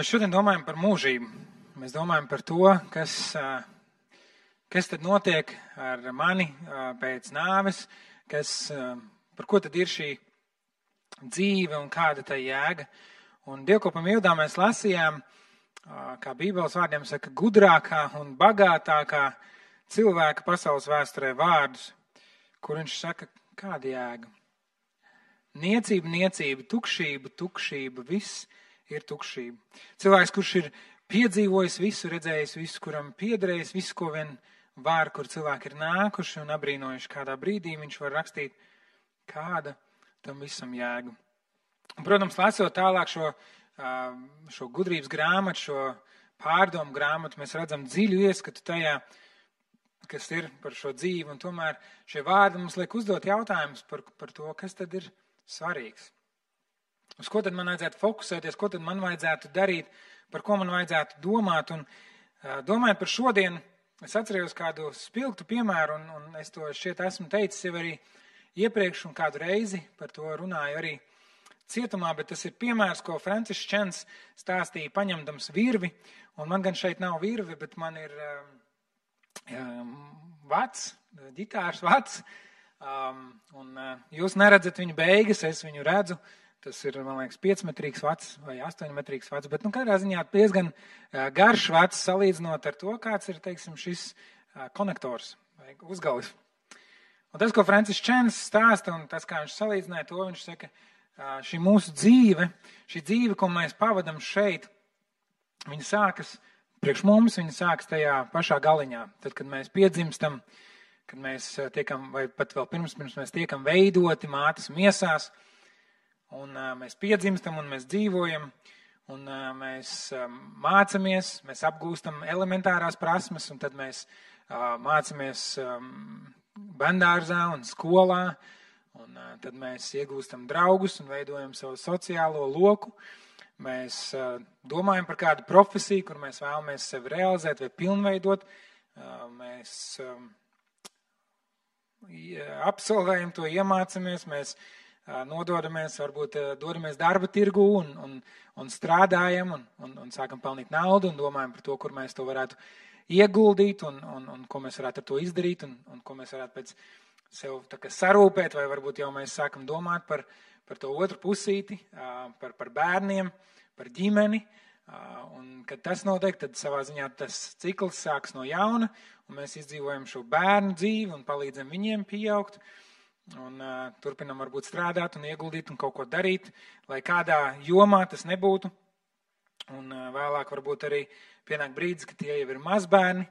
Mēs šodien domājam par mūžību. Mēs domājam par to, kas tad notiek ar mani pēc nāves, par ko tad ir šī dzīve un kāda tā jēga. Un dievkalpojuma ievadā mēs lasījām, kā Bībeles vārdiem saka, gudrākā un bagātākā cilvēka pasaules vēsturē vārdus, kur viņš saka, kāda jēga. Niecība, niecība, tukšība, viss ir tukšība. Cilvēks, kurš ir piedzīvojis visu, redzējis visu, kuram piederējis visu, ko vien var, kur cilvēki ir nākuši un abrīnojuši kādā brīdī, viņš var rakstīt, kāda tam visam jēga. Un, protams, lasot tālāk šo gudrības grāmatu, šo pārdomu grāmatu, mēs redzam dziļu ieskatu tajā, kas ir par šo dzīvi, un tomēr šie vārdi mums liek uzdot jautājumus par to, kas tad ir svarīgs. Uz ko tad man vajadzētu fokusēties, ko tad man vajadzētu darīt, par ko man vajadzētu domāt. Un domājot par šodienu, es atcerējos kādu spilgtu piemēru, un es to šķiet esmu teicis jau arī iepriekš un kādu reizi par to runāju arī cietumā, bet tas ir piemērs, ko Francisks Čens stāstīja paņemdams virvi, un man gan šeit nav virve, bet man ir vats, ģitārs vats, un jūs neredzat viņu beigas, es viņu redzu. Tas ir, man liekas, 5-metrīgs vats vai 8-metrīgs vats, bet katrā ziņā diezgan garš vats salīdzinot ar to, kāds ir, teiksim, šis konektors vai uzgalis. Un tas, ko Francisks Čens stāsta, un tas, kā viņš salīdzināja to, viņš saka, šī mūsu dzīve, šī dzīve, ko mēs pavadam šeit, viņa sākas priekš mums, viņa sākas tajā pašā galiņā. Tad, kad mēs piedzimstam, kad mēs tiekam, vai pat vēl pirms mēs tiekam veidoti mātes miesās, un mēs piedzimstam, un mēs dzīvojam, un mēs mācamies, mēs apgūstam elementārās prasmes, un tad mēs mācamies bērndārzā un skolā, un tad mēs iegūstam draugus un veidojam savu sociālo loku. Mēs domājam par kādu profesiju, kur mēs vēlamies sevi realizēt vai pilnveidot. Mēs absolvējam to, iemācamies, mēs nododamies, varbūt dodamies darba tirgu un strādājam un sākam pelnīt naudu un domājam par to, kur mēs to varētu ieguldīt un ko mēs varētu ar to izdarīt un ko mēs varētu pēc sev tā kā sarūpēt, vai varbūt jau mēs sākam domāt par to otru pusīti, par bērniem, par ģimeni. Un, kad tas notiek, tad savā ziņā tas cikls sāks no jauna un mēs izdzīvojam šo bērnu dzīvi un palīdzam viņiem pieaugt. Un turpinam varbūt strādāt un ieguldīt un kaut ko darīt, lai kādā jomā tas nebūtu. Un vēlāk varbūt arī pienāk brīdis, ka tie jau ir mazbērni,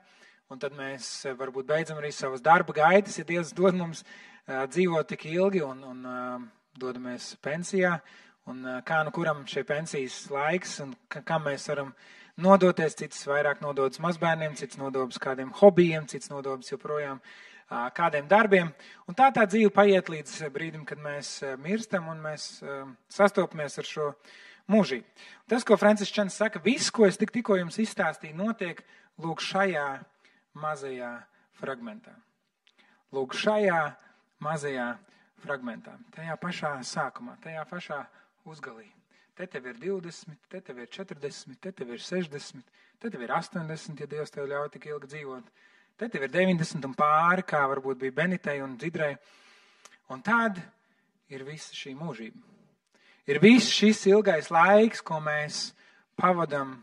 un tad mēs varbūt beidzam arī savas darba gaitas, ja Dievs dod mums dzīvot tik ilgi un dodamies pensijā. Un kā nu kuram šie pensijas laiks un kam mēs varam nodoties, cits vairāk nododas mazbērniem, cits nododas kādiem hobijiem, cits nododas joprojām kādiem darbiem. Un tā dzīve paiet līdz brīdim, kad mēs mirstam un mēs sastopamies ar šo mūžību. Tas, ko Francisks Čens saka, viss, ko es tikko jums izstāstīju, notiek lūk šajā mazajā fragmentā. Lūk šajā mazajā fragmentā. Tajā pašā sākumā, tajā pašā uzgalī. Te tev ir 20, te tev ir 40, te tev ir 60, te tev ir 80, ja Dievs tev ļauj tik ilgi dzīvot. Te tev ir 90 un pāri, kā varbūt bija Benitei un Dzidrai. Un tad ir visa šī mūžība. Ir viss šis ilgais laiks, ko mēs pavadam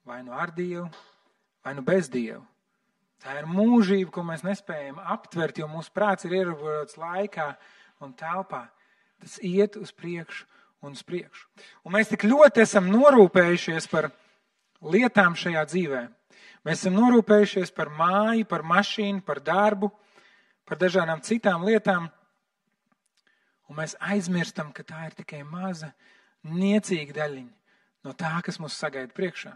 vai nu ar Dievu, vai nu bez Dievu. Tā ir mūžība, ko mēs nespējam aptvert, jo mūsu prāts ir ierobežots laikā un telpā. Tas iet uz priekšu un uz priekšu. Un mēs tik ļoti esam norūpējušies par lietām šajā dzīvē. Mēs esam norūpējušies par māju, par mašīnu, par darbu, par dažādām citām lietām. Un mēs aizmirstam, ka tā ir tikai maza, niecīga daļiņa no tā, kas mūs sagaida priekšā.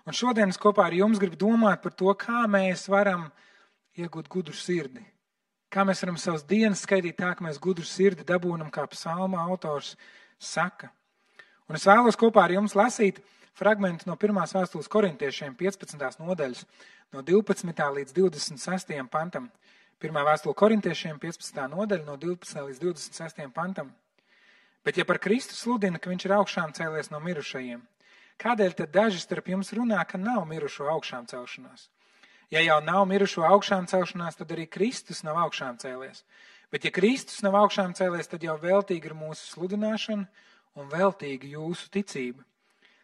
Un šodien es kopā ar jums gribu domāt par to, kā mēs varam iegūt gudru sirdi. Kā mēs varam savas dienas skaitīt tā, ka mēs gudru sirdi dabūnam, kā psalma autors saka. Un es vēlos kopā ar jums lasīt fragmentu no 1. vēstules korintiešiem 15. nodaļas no 12. līdz 26. pantam. 1. vēstule korintiešiem 15. nodaļa no 12. līdz 26. pantam. Bet ja par Kristu sludina, ka viņš ir augšām cēlies no mirušajiem, Kādēļ tad daži starp jums runā, ka nav mirušo augšām celšanās? Ja jau nav mirušo augšām celšanās, tad arī Kristus nav augšām cēlies. Bet ja Kristus nav augšām cēlies, tad jau veltīgi ir mūsu sludināšana un veltīgi jūsu ticība.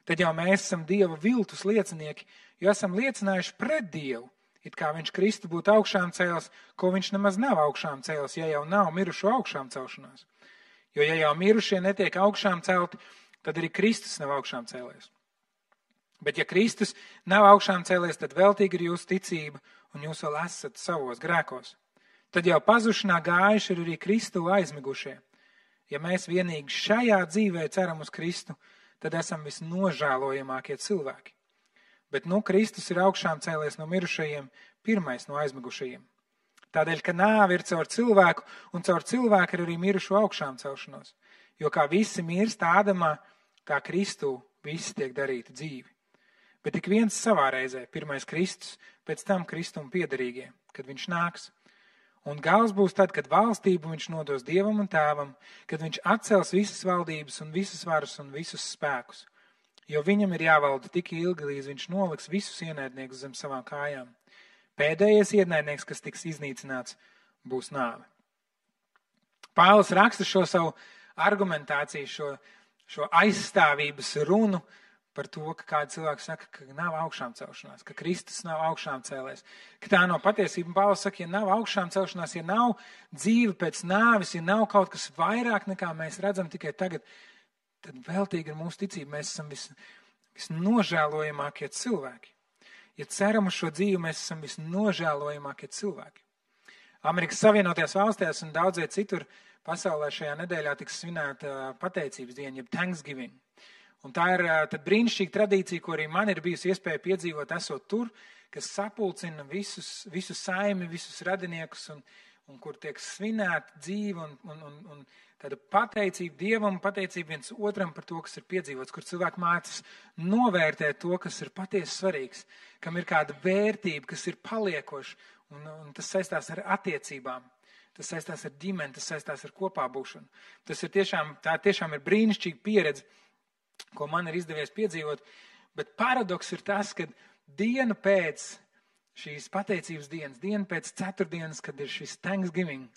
Tad jau mēs esam Dieva viltus liecinieki, jo esam liecinājuši pret Dievu, it kā viņš Kristu būtu augšām cēlis, ko viņš nemaz nav augšām cēlis, ja jau nav mirušo augšām celšanās. Jo ja jau mirušie netiek augšām celti, tad arī Kristus nav augšām cēlies. Bet ja Kristus nav augšām cēlies, tad veltīgi ir jūsu ticība un jūs vēl esat savos grēkos. Tad jau pazušanā gājuši ir arī Kristu aizmigušie. Ja mēs vienīgi šajā dzīvē ceram uz Kristu, tad esam visnožēlojamākie cilvēki. Bet Kristus ir augšām cēlies no mirušajiem, pirmais no aizmigušajiem. Tādēļ, ka nāve ir caur cilvēku, un caur cilvēku ir arī mirušo augšām celšanos. Jo kā visi mirst Ādamā, tā Kristū visi tiek darīti dzīvi. Bet tik viens savā reizē, pirmais Kristus, pēc tam Kristum piederīgie, kad viņš nāks. Un gals būs tad, kad valstību viņš nodos Dievam un Tēvam, kad viņš atcels visas valdības un visas varas un visus spēkus. Jo viņam ir jāvalda tik ilgi, līdz viņš noliks visus ienaidniekus zem savām kājām. Pēdējais ienaidnieks, kas tiks iznīcināts, būs nāve. Pāvils raksta šo savu argumentāciju, šo aizstāvības runu par to, ka kādi cilvēki saka, ka nav augšām celšanās, ka Kristus nav augšām cēlēs, ka tā nav patiesība. Pāvils saka, ja nav augšām celšanās, ja nav dzīve pēc nāves, ja nav kaut kas vairāk nekā mēs redzam tikai tagad, tad veltīgi ir mūsu ticība. Mēs esam visnožēlojamākie cilvēki. Ja ceram uz šo dzīvi, mēs esam visnožēlojamākie cilvēki. Amerikas Savienotajās valstīs un daudzie citur pasaulē šajā nedēļā tiks svinēta pateicības diena, jeb Thanksgiving. Un tā ir tad brīnišķīga tradīcija, ko arī man ir bijusi iespēja piedzīvot, esot tur, kas sapulcina visu saimi, visus radiniekus, un kur tiek svinēta dzīve un tāda pateicība Dievam, pateicība viens otram par to, kas ir piedzīvots, kur cilvēki mācās novērtēt to, kas ir patiesi svarīgs, kam ir kāda vērtība, kas ir paliekoša, un tas saistās ar attiecībām. Tas saistās ar ģimeni, tas saistās ar kopā būšanu. Tā tiešām ir brīnišķīga pieredze, ko man ir izdevies piedzīvot, bet paradoks ir tas, ka dienu pēc šīs pateicības dienas, dienu pēc ceturtdienas, kad ir šis Thanksgiving,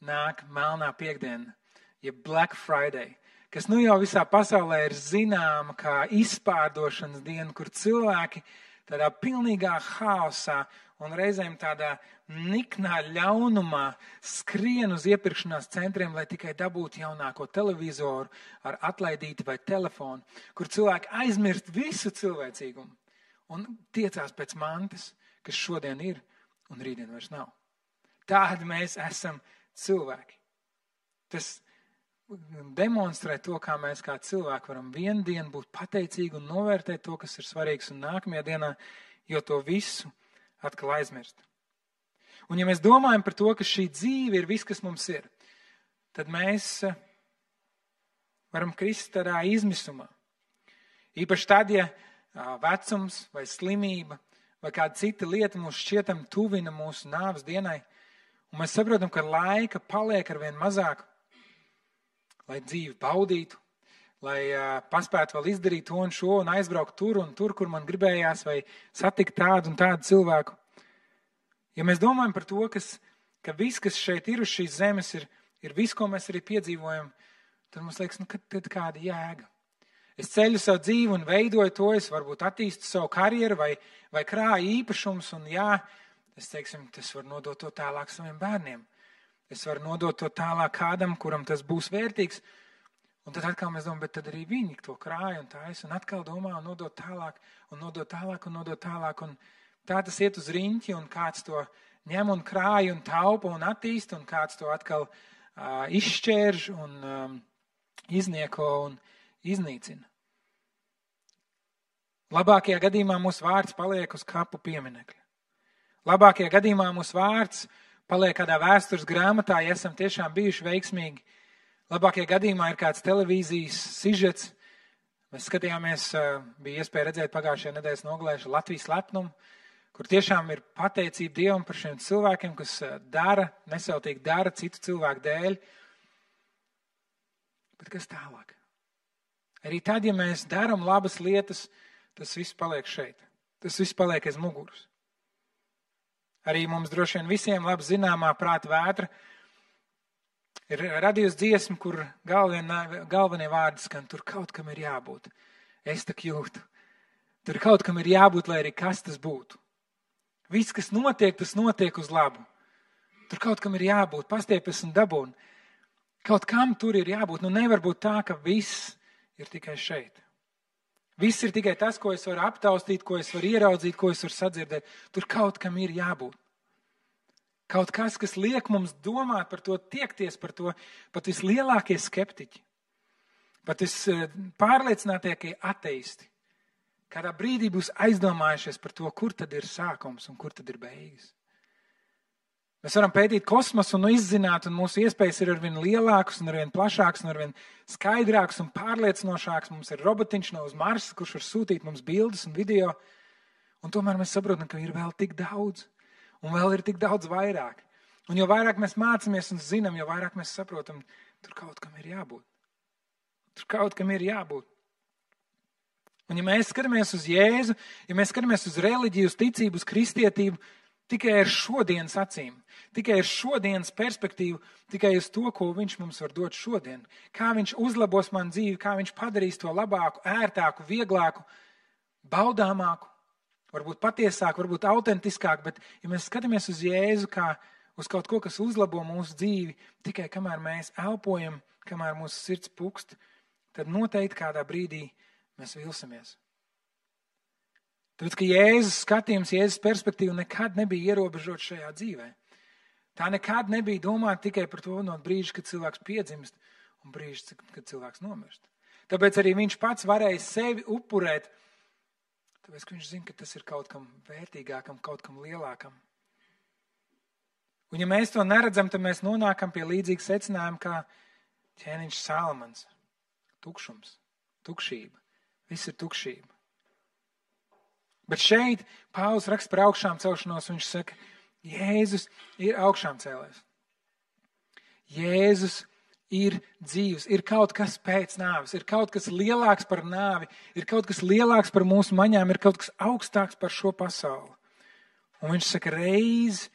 nāk melnā piekdiena, jeb Black Friday, kas jau visā pasaulē ir zināma kā izpārdošanas diena, kur cilvēki tādā pilnīgā haosā un reizēm tādā niknā ļaunumā skrien uz iepirkšanās centriem, lai tikai dabūtu jaunāko televizoru ar atlaidīti vai telefonu, kur cilvēki aizmirst visu cilvēcīgumu un tiecās pēc mantas, kas šodien ir un rītdien vairs nav. Tādi mēs esam cilvēki. Tas demonstrē to, kā mēs kā cilvēki varam vienu dienu būt pateicīgi un novērtēt to, kas ir svarīgs, un nākamajā dienā jau to visu atkal aizmirst. Un ja mēs domājam par to, ka šī dzīve ir viss, kas mums ir, tad mēs varam krist tādā izmisumā. Īpaši tad, ja vecums vai slimība vai kāda cita lieta mūs šķietam tuvina mūsu nāves dienai, un mēs saprotam, ka laika paliek arvien mazāk, lai dzīvi baudītu, lai paspētu vēl izdarīt to un šo un aizbraukt tur un tur, kur man gribējās, vai satikt tādu un tādu cilvēku. Ja mēs domājam par to, ka viss, kas šeit ir uz šīs zemes, ir viss, ko mēs arī piedzīvojam, tad mums liekas, tad kāda jēga. Es ceļu savu dzīvi un veidoju to, es varbūt attīstu savu karjeru vai krāju īpašums, un es varu nodot to tālāk saviem bērniem. Es varu nodot to tālāk kādam, kuram tas būs vērtīgs. Un tad atkal mēs domājam, bet tad arī viņi to krāja un taisa, un atkal domā un nodot tālāk, un nodot tālāk, un nodot tālāk. Un tā tas iet uz riņķi, un kāds to ņem un krāja un taupa un attīsta, un kāds to atkal izšķērž un iznieko un iznīcina. Labākajā gadījumā mūsu vārds paliek uz kapu pieminekļa. Labākajā gadījumā mūsu vārds paliek kādā vēstures grāmatā, ja esam tiešām bijuši veiksmīgi. Labākajā gadījumā ir kāds televīzijas sižets. Mēs skatījāmies, bija iespēja redzēt pagājušajā nedēļas nogalē Latvijas lepnumu, kur tiešām ir pateicība Dievam par šiem cilvēkiem, kas nesautīgi dara citu cilvēku dēļ. Bet kas tālāk? Arī tad, ja mēs darām labas lietas, tas viss paliek šeit. Tas viss paliek aiz muguras. Arī mums droši vien visiem labi zināmā prāta vētra ir radījusi dziesma, kur galvenie vārdi skan, tur kaut kam ir jābūt. Es tak jūtu. Tur kaut kam ir jābūt, lai arī kas tas būtu. Viss, kas notiek, tas notiek uz labu. Tur kaut kam ir jābūt, pastiepjas un dabūn. Kaut kam tur ir jābūt. Nu nevar būt tā, ka viss ir tikai šeit. Viss ir tikai tas, ko es varu aptaustīt, ko es varu ieraudzīt, ko es varu sadzirdēt. Tur kaut kam ir jābūt. Kaut kas liek mums domāt par to, tiekties par to, pat vislielākie skeptiķi, pat vispārliecinātākie ateisti. Kādā brīdī būs aizdomājušies par to, kur tad ir sākums un kur tad ir beigas. Mēs varam pētīt kosmosu un izzināt, un mūsu iespējas ir arvien lielākas un arvien plašākas un arvien skaidrākas un pārliecinošākas. Mums ir robotiņš no uz Marsa, kurš var sūtīt mums bildes un video, un tomēr mēs saprotam, ka ir vēl tik daudz, un vēl ir tik daudz vairāk. Un jo vairāk mēs mācāmies un zinām, jo vairāk mēs saprotam, tur kaut kam ir jābūt. Tur kaut kam ir jābūt. Un ja mēs skatāmies uz Jēzu, ja mēs skatāmies uz reliģiju, uz ticību, uz kristietību, tikai ar šodienas acīm, tikai ar šodienas perspektīvu, tikai uz to, ko viņš mums var dot šodien. Kā viņš uzlabos man dzīvi, kā viņš padarīs to labāku, ērtāku, vieglāku, baudāmāku, varbūt patiesāku, varbūt autentiskāku, bet ja mēs skatāmies uz Jēzu kā uz kaut ko, kas uzlabo mūsu dzīvi, tikai kamēr mēs elpojam, kamēr mūsu sirds pukst, tad noteikti kādā brīdī mēs vilsimies. Tāpēc, ka Jēzus skatījums, Jēzus perspektīva nekad nebija ierobežot šajā dzīvē. Tā nekad nebija domāta tikai par to no brīža, kad cilvēks piedzimst un brīža, kad cilvēks nomirst. Tāpēc arī viņš pats varēja sevi upurēt, tāpēc, ka viņš zina, ka tas ir kaut kam vērtīgākam, kaut kam lielākam. Un ja mēs to neredzam, tad mēs nonākam pie līdzīga secinājuma kā ķēniņš Salmans. Tukšums, tukšība, viss ir tukšība. Bet šeit Pāvils raksta par augšām celšanos, un viņš saka, Jēzus ir augšām cēlēs. Jēzus ir dzīvs, ir kaut kas pēc nāves, ir kaut kas lielāks par nāvi, ir kaut kas lielāks par mūsu maņām, ir kaut kas augstāks par šo pasauli. Un viņš saka, reiz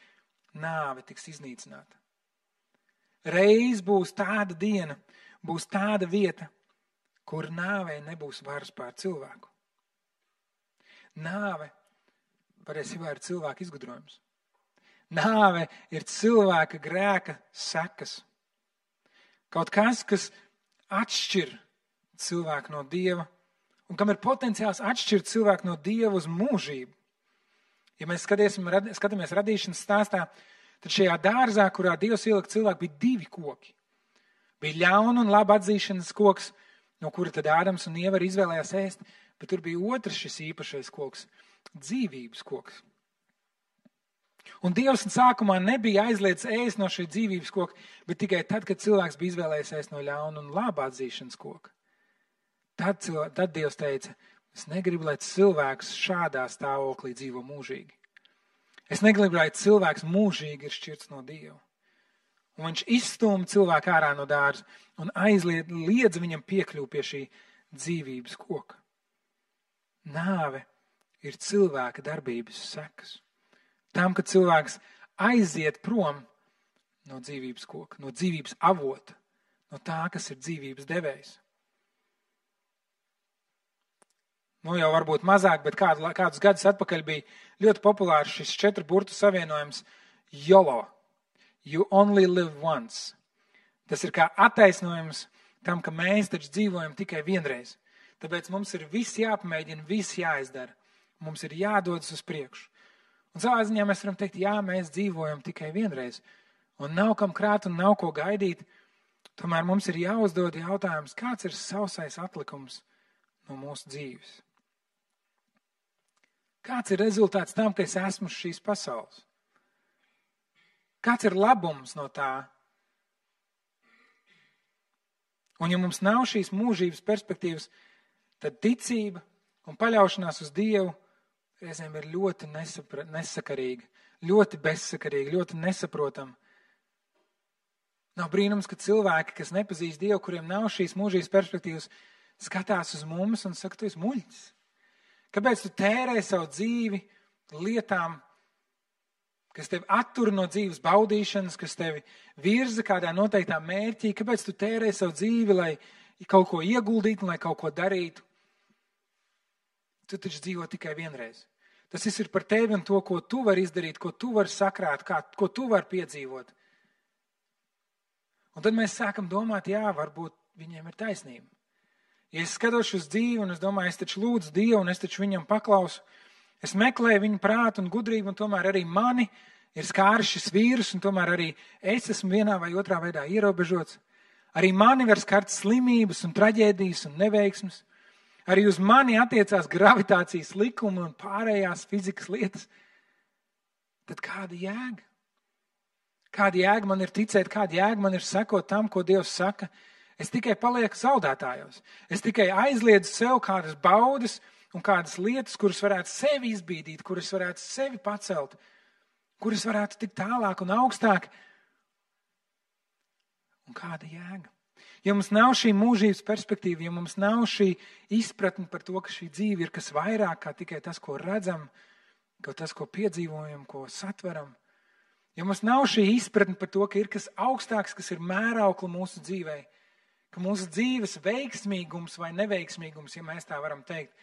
nāve tiks iznīcināta. Reiz būs tāda diena, būs tāda vieta, kur nāvei nebūs varas pār cilvēku. Nāve patiesībā ir cilvēka izgudrojums. Nāve ir cilvēka grēka sekas. Kaut kas, kas atšķir cilvēku no Dieva un kam ir potenciāls atšķirt cilvēku no Dieva uz mūžību. Ja mēs skatāmies radīšanas stāstā, tad šajā dārzā, kurā Dievs ielika cilvēku, bija 2 koki. Bija ļauna un laba atzīšanas koks, no kura tad Ādams un Ieva izvēlējās ēst, bet tur bija otrs šis īpašais koks, dzīvības koks. Un Dievs sākumā nebija aizliedz ēst no šī dzīvības koka, bet tikai tad, kad cilvēks bija izvēlējies ēst no ļauna un laba atzīšanas koka. Tad Dievs teica, es negribu, lai cilvēks šādā stāvoklī dzīvo mūžīgi. Es negribu, lai cilvēks mūžīgi ir šķirts no Dieva. Un viņš izstūma cilvēku ārā no dārza un liedza viņam piekļūt pie šī dzīvības koka. Nāve ir cilvēka darbības sekas. Tam, kad cilvēks aiziet prom no dzīvības koka, no dzīvības avota, no tā, kas ir dzīvības devējs. Nu jau varbūt mazāk, bet kādus gadus atpakaļ bija ļoti populārs šis 4 burtu savienojums YOLO. You only live once. Tas ir kā attaisnojums tam, ka mēs taču dzīvojam tikai vienreiz. Tāpēc mums ir viss jāpamēģina, viss jāizdara. Mums ir jādodas uz priekšu. Un savā ziņā mēs varam teikt, jā, mēs dzīvojam tikai vienreiz. Un nav kam krāt un nav ko gaidīt. Tomēr mums ir jāuzdod jautājums, kāds ir sausais atlikums no mūsu dzīves. Kāds ir rezultāts tam, ka es esmu uz šīs pasaules? Kāds ir labums no tā? Un ja mums nav šīs mūžības perspektīvas, tad ticība un paļaušanās uz Dievu reizēm ir ļoti nesakarīga, ļoti bezsakarīga, ļoti nesaprotama. Nav brīnums, ka cilvēki, kas nepazīst Dievu, kuriem nav šīs mūžības perspektīvas, skatās uz mums un saka, tu esi muļķis. Kāpēc tu tērē savu dzīvi lietām, kas tevi attur no dzīves baudīšanas, kas tevi virza kādā noteiktā mērķī? Kāpēc tu tērē savu dzīvi, lai kaut ko ieguldītu, lai kaut ko darītu? Tu taču dzīvo tikai vienreiz. Tas viss ir par tevi un to, ko tu vari izdarīt, ko tu vari sakrāt, ko tu vari piedzīvot. Un tad mēs sākam domāt, jā, varbūt viņiem ir taisnība. Ja es skatos uz dzīvi un es domāju, es taču lūdzu Dievu un es taču viņam paklausu, es meklēju viņu prātu un gudrību un tomēr arī mani ir skāris šis vīrus un tomēr arī es esmu vienā vai otrā veidā ierobežots. Arī mani var skart slimības un traģēdijas un neveiksmes. Arī uz mani attiecās gravitācijas likumi un pārējās fizikas lietas. Tad kāda jēga? Kāda jēga man ir ticēt, kāda jēga man ir sekot tam, ko Dievs saka? Es tikai palieku zaudētājos. Es tikai aizliedzu sev kādas baudas un kādas lietas, kuras varētu sevi izbīdīt, kuras varētu sevi pacelt, kuras varētu tikt tālāk un augstāk. Un kāda jēga? Ja mums nav šī mūžības perspektīva, ja mums nav šī izpratne par to, ka šī dzīve ir kas vairāk kā tikai tas, ko redzam, ka tas, ko piedzīvojam, ko satveram, ja mums nav šī izpratne par to, ka ir kas augstāks, kas ir mēraukla mūsu dzīvei, ka mūsu dzīves veiksmīgums vai neveiksmīgums, ja mēs tā varam teikt,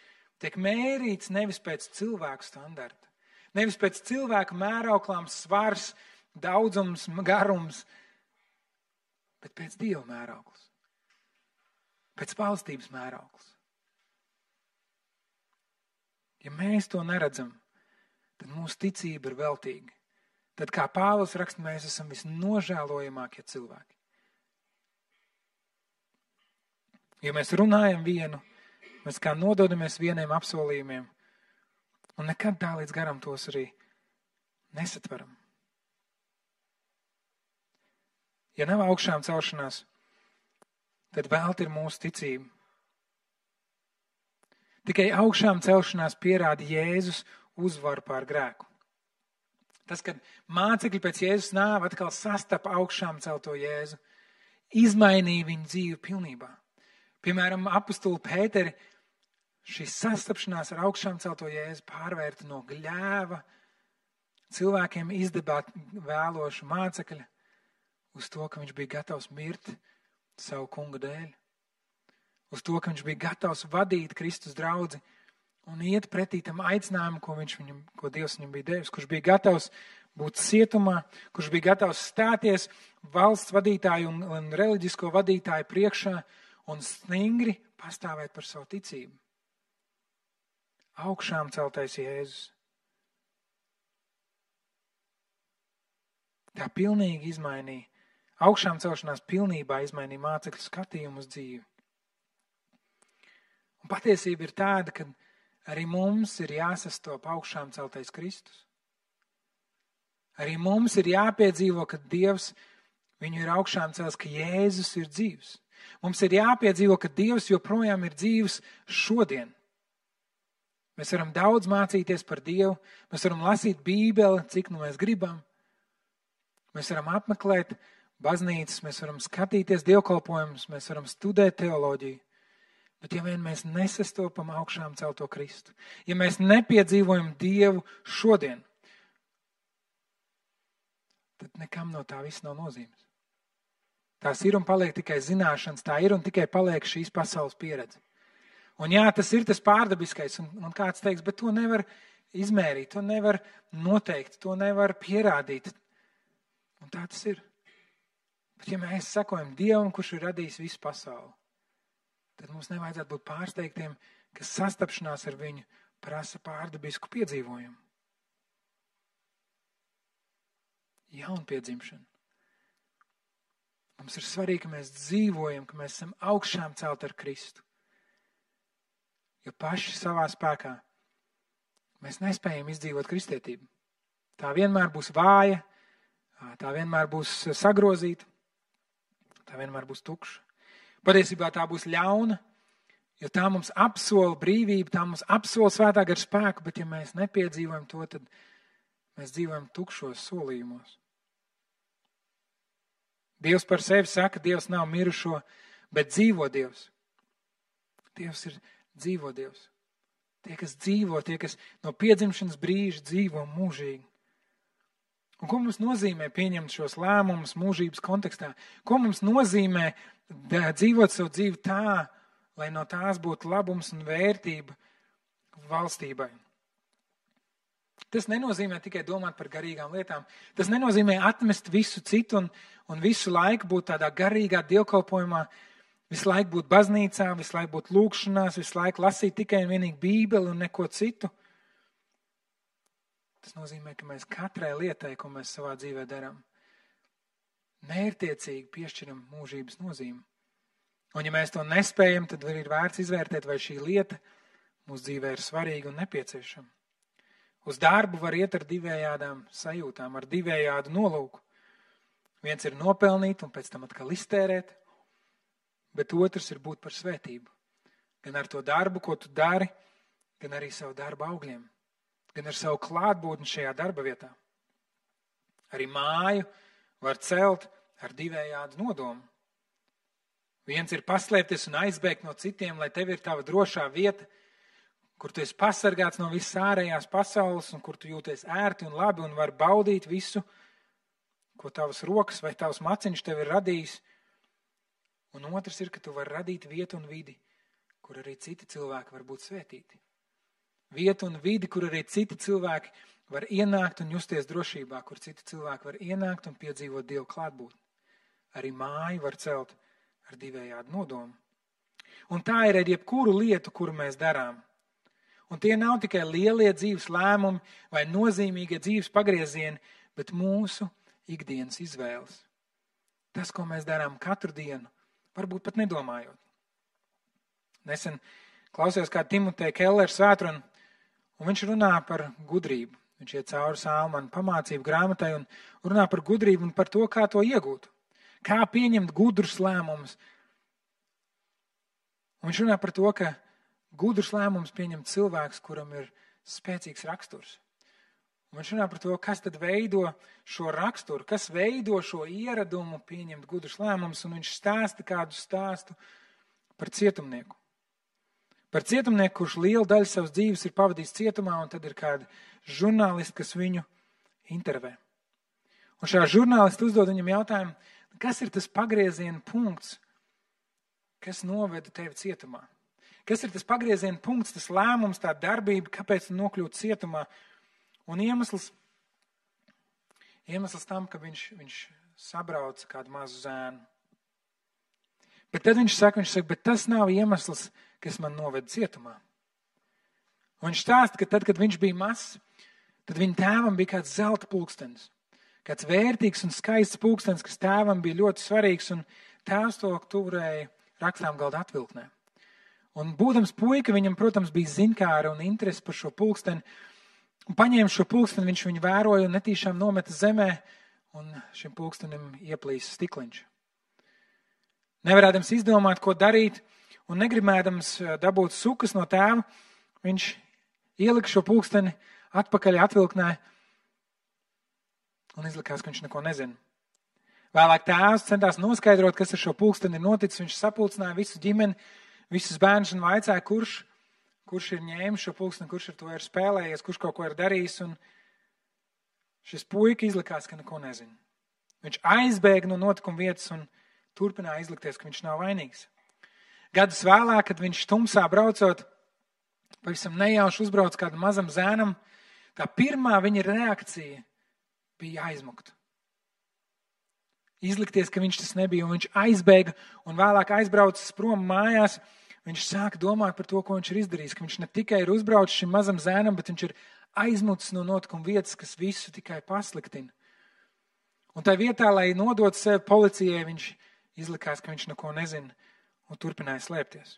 tiek mērīts nevis pēc cilvēku standarta, nevis pēc cilvēku mērauklām svars, daudzums, garums, bet pēc Dieva mērauklas, pēc valstības mērauklas. Ja mēs to neredzam, tad mūsu ticība ir veltīga. Tad, kā Pāvils raksta, mēs esam visnožēlojamākie cilvēki. Ja mēs runājam vienu, mēs kā nododamies vieniem apsolījumiem, un nekad tā līdz garam tos arī nesatveram. Ja nav augšām celšanās, tad velti ir mūsu ticība. Tikai augšām celšanās pierāda Jēzus uzvaru pār grēku. Tas, kad mācekļi pēc Jēzus nāva atkal sastapa augšām celto Jēzu, izmainīja viņu dzīvi pilnībā. Piemēram, apostuli Pēteri šī sastapšanās ar augšām celto Jēzu pārvērta no gļēva cilvēkiem izdabāt vēlošu mācekļa uz to, ka viņš bija gatavs mirt savu kunga dēļ. Uz to, ka viņš bija gatavs vadīt Kristus draudzi un iet pretī tam aicinājumu, ko Dievs viņam bija devis, kurš bija gatavs būt cietumā, kurš bija gatavs stāties valsts vadītāju un reliģisko vadītāju priekšā un stingri pastāvēt par savu ticību. Augšām celtais Jēzus. Tā pilnīgi izmainīja, augšām celšanās pilnībā izmainīja mācekļu skatījumu uz dzīvi. Un patiesība ir tāda, ka arī mums ir jāsastop augšām celtais Kristus. Arī mums ir jāpiedzīvo, ka Dievs viņu ir augšām cels, ka Jēzus ir dzīvs. Mums ir jāpiedzīvo, ka Dievs joprojām ir dzīvs šodien. Mēs varam daudz mācīties par Dievu, mēs varam lasīt Bībeli, cik nu mēs gribam. Mēs varam apmeklēt baznīcas, mēs varam skatīties dievkalpojumus, mēs varam studēt teoloģiju. Bet ja vien mēs nesastopam augšām celto Kristu, ja mēs nepiedzīvojam Dievu šodien, tad nekam no tā viss nav nozīmes. Tās ir un paliek tikai zināšanas, tā ir un tikai paliek šīs pasaules pieredze. Un jā, tas ir tas pārdabiskais, un kāds teiks, bet to nevar izmērīt, to nevar noteikt, to nevar pierādīt. Un tā tas ir. Bet ja mēs sekojam Dievam, kurš ir radījis visu pasauli, tad mums nevajadzētu būt pārsteigtiem, ka sastapšanās ar viņu prasa pārdabisku piedzīvojumu. Jaunpiedzimšanu. Mums ir svarīgi, ka mēs dzīvojam, ka mēs esam augšām celt ar Kristu. Jo paši savā spēkā mēs nespējam izdzīvot kristietību. Tā vienmēr būs vāja, tā vienmēr būs sagrozīta, tā vienmēr būs tukša. Patiesībā tā būs ļauna, jo tā mums apsola brīvību, tā mums apsola svētā gara spēku, bet ja mēs nepiedzīvojam to, tad mēs dzīvojam tukšos solījumos. Dievs par sevi saka, Dievs nav mirušo, bet dzīvo Dievs. Dievs ir dzīvo Dievs. Tie, kas dzīvo, tie, kas no piedzimšanas brīža dzīvo mūžīgi. Un ko mums nozīmē pieņemt šos lēmumus mūžības kontekstā? Ko mums nozīmē dzīvot savu dzīvi tā, lai no tās būtu labums un vērtība valstībai? Tas nenozīmē tikai domāt par garīgām lietām. Tas nenozīmē atmest visu citu un visu laiku būt tādā garīgā dievkalpojumā, visu laiku būt baznīcā, visu laiku būt lūgšanās, visu laiku lasīt tikai un vienīgi Bībeli un neko citu. Tas nozīmē, ka mēs katrai lietai, ko mēs savā dzīvē darām, mērķtiecīgi piešķiram mūžības nozīmi. Un ja mēs to nespējam, tad ir vērts izvērtēt, vai šī lieta mūsu dzīvē ir svarīga un nepieciešama. Uz darbu var iet ar divējādām sajūtām, ar divējādu nolūku. Viens ir nopelnīt un pēc tam atkal iztērēt, bet otrs ir būt par svētību. Gan ar to darbu, ko tu dari, gan arī savu darbu augļiem. Gan ar savu klātbūtni šajā darba vietā. Arī māju var celt ar divējādu nodomu. Viens ir paslēpties un aizbēgt no citiem, lai tev ir tava drošā vieta, kur tu esi pasargāts no visas ārējās pasaules un kur tu jūties ērti un labi un var baudīt visu, ko tavas rokas vai tavs maciņš tev ir radījis. Un otrs ir, ka tu vari radīt vietu un vidi, kur arī citi cilvēki var būt svētīti. Vietu un vidi, kur arī citi cilvēki var ienākt un justies drošībā, kur citi cilvēki var ienākt un piedzīvot Dievu klātbūtni. Arī māju var celt ar divējādu nodomu. Un tā ir ar jebkuru lietu, kuru mēs darām. Un tie nav tikai lielie dzīves lēmumi vai nozīmīgie dzīves pagriezieni, bet mūsu ikdienas izvēles. Tas, ko mēs darām katru dienu, varbūt pat nedomājot. Nesen klausījos kā Timoteja Kellera svētrunu, un viņš runā par gudrību. Viņš iet cauri Salmanu pamācību grāmatai un runā par gudrību un par to, kā to iegūt. Kā pieņemt gudrus lēmumus. Un viņš runā par to, ka gudrus lēmumus pieņem cilvēks, kuram ir spēcīgs raksturs. Un viņš runā par to, kas tad veido šo raksturu, kas veido šo ieradumu pieņemt gudrus lēmumus, un viņš stāsta kādu stāstu par cietumnieku. Par cietumnieku, kurš lielu daļu savas dzīves ir pavadījis cietumā, un tad ir kādi žurnālisti, kas viņu intervē. Un šā žurnālisti uzdod viņam jautājumu, kas ir tas pagrieziena punkts, kas noveda tevi cietumā? Kas ir tas pagrieziena punkts, tas lēmums, tā darbība, kāpēc tu nokļūti cietumā? Un iemesls tam, ka viņš sabrauca kādu mazu zēnu. Bet tad viņš saka, bet tas nav iemesls, kas man noveda cietumā. Un viņš stāsta, ka tad, kad viņš bija mazs, tad viņa tēvam bija kāds zelta pulkstenis. Kāds vērtīgs un skaists pulkstenis, kas tēvam bija ļoti svarīgs, un tēvs to turēja rakstām galda atvilknē. Un būdams puika, viņam, protams, bija zinkāra un interesi par šo pulksteni. Un paņēma šo pulksteni, viņš viņu vēroja un netīšām nometa zemē, un šim pulkstenim ieplīsa stikliņš. Nevarēdams izdomāt, ko darīt, un negribēdams dabūt sukas no tēva, viņš ielika šo pulksteni atpakaļ atvilknē un izlikās, ka viņš neko nezina. Vēlāk tēvs centās noskaidrot, kas ar šo pulksteni ir noticis. Viņš sapulcināja visu ģimeni, visus bērnus un vaicāja, kurš ir ņēmis šo pulksteni, kurš ar to ir spēlējies, kurš kaut ko ir darījis. Un šis puika izlikās, ka neko nezina. Viņš aizbēga no notikuma vietas un turpināja izlikties, ka viņš nav vainīgs. Gadus vēlāk, kad viņš tumsā braucot, pavisam nejauši uzbrauc kādam mazam zēnam, tā pirmā viņa reakcija bija aizmukt. Izlikties, ka viņš tas nebija, un viņš aizbēga un vēlāk aizbraucis prom mājās. Viņš sāka domāt par to, ko viņš ir izdarījis, ka viņš ne tikai ir uzbraucis šim mazam zēnam, bet viņš ir aizmucis no notikuma vietas, kas visu tikai pasliktina. Un tā vietā, lai nodot sevi policijai, viņš izlikās, ka viņš neko nezina un turpināja slēpties.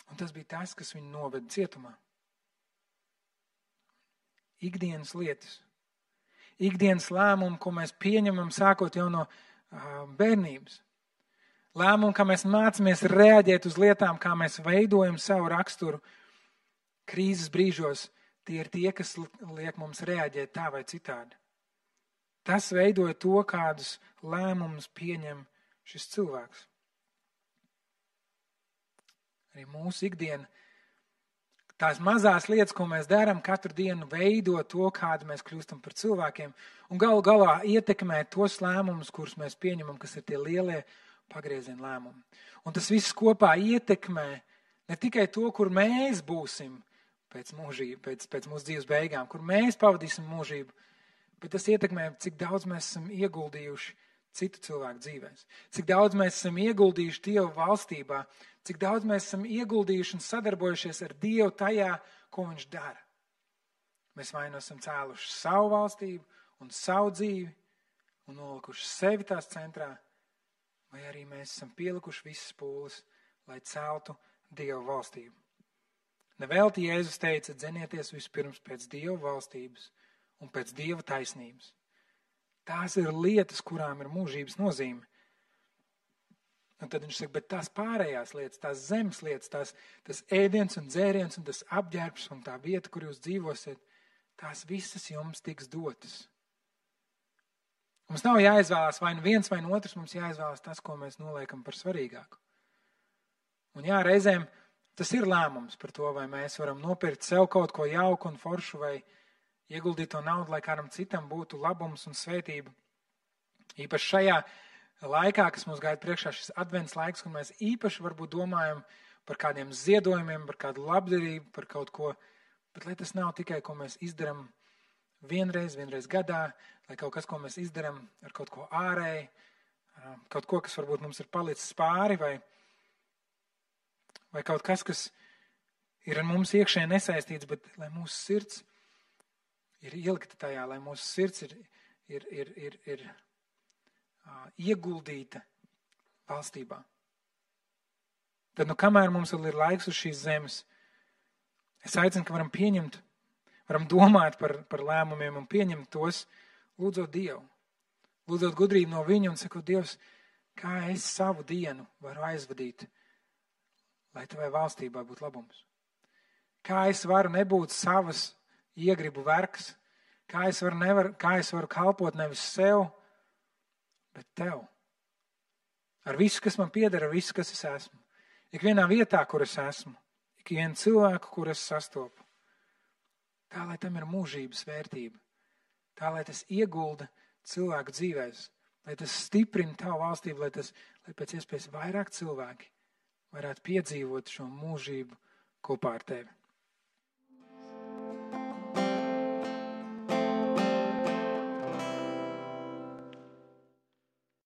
Un tas bija tas, kas viņu noveda cietumā. Ikdienas lietas. Ikdienas lēmumi, ko mēs pieņemam sākot jau no bērnības. Lēmumi, kā mēs mācāmies reaģēt uz lietām, kā mēs veidojam savu raksturu krīzes brīžos, tie ir tie, kas liek mums reaģēt tā vai citādi. Tas veidoja to, kādus lēmumus pieņem šis cilvēks. arī mūsu ikdiena. Tās mazās lietas, ko mēs darām, katru dienu veido to, kādu mēs kļūstam par cilvēkiem, un galu galā ietekmē tos lēmumus, kurus mēs pieņemam, kas ir tie lielie pagrieziena lēmumi. Un tas viss kopā ietekmē ne tikai to, kur mēs būsim pēc mūsu dzīves beigām, kur mēs pavadīsim mūžību, bet tas ietekmē, cik daudz mēs esam ieguldījuši citu cilvēku dzīvēs, cik daudz mēs esam ieguldījuši Dieva valstībā, cik daudz mēs esam ieguldījuši un sadarbojušies ar Dievu tajā, ko Viņš dara. Mēs vai nu esam cēluši savu valstību un savu dzīvi un nolikuši sevi tās centrā, vai arī mēs esam pielikuši visas pūles, lai celtu Dieva valstību. Nevelti Jēzus teica, dzenieties vispirms pēc Dieva valstības un pēc Dieva taisnības. Tās ir lietas, kurām ir mūžības nozīme. Un tad viņš saka, bet tās pārējās lietas, tās zemes lietas, tas ēdiens un dzēriens un tas apģērbs un tā vieta, kur jūs dzīvosiet, tās visas jums tiks dotas. Mums nav jāizvēlās vai nu viens vai otrs, mums jāizvēlās tas, ko mēs noliekam par svarīgāku. Un jā, reizēm tas ir lēmums par to, vai mēs varam nopirkt sev kaut ko jauku un foršu vai ieguldīt to naudu, lai kādam citam būtu labums un svētība. Īpaši šajā laikā, kas mums gaida priekšā, šis advents laiks, kad mēs īpaši varbūt domājam par kādiem ziedojumiem, par kādu labdarību, par kaut ko, bet lai tas nav tikai, ko mēs izdaram vienreiz gadā, lai kaut kas, ko mēs izdaram ar kaut ko ārēji, kaut ko, kas varbūt mums ir palicis pāri, vai kaut kas ir ar mums iekšēji nesaistīts, bet lai mūsu sirds ir ielikta tajā, lai mūsu sirds ir ieguldīta valstībā. Tad, kamēr mums vēl ir laiks uz šīs zemes, es aicinu, ka varam domāt par lēmumiem un pieņemt tos, lūdzot Dievu. Lūdzot gudrību no Viņa un sakot, Dievs, kā es savu dienu varu aizvadīt, lai Tavai valstībai būtu labums. Kā es varu nebūt savas iegribu vergs, kā es varu kalpot nevis sev, bet Tev. Ar visu, kas man pieder, ar visu, kas es esmu. Ikvienā vietā, kur es esmu, ikvienu cilvēku, kur es sastopu. Tā, lai tam ir mūžības vērtība. Tā, lai tas iegulda cilvēku dzīvēs, lai tas stiprina Tavu valstību, lai pēc iespējas vairāk cilvēki varētu piedzīvot šo mūžību kopā ar Tevi.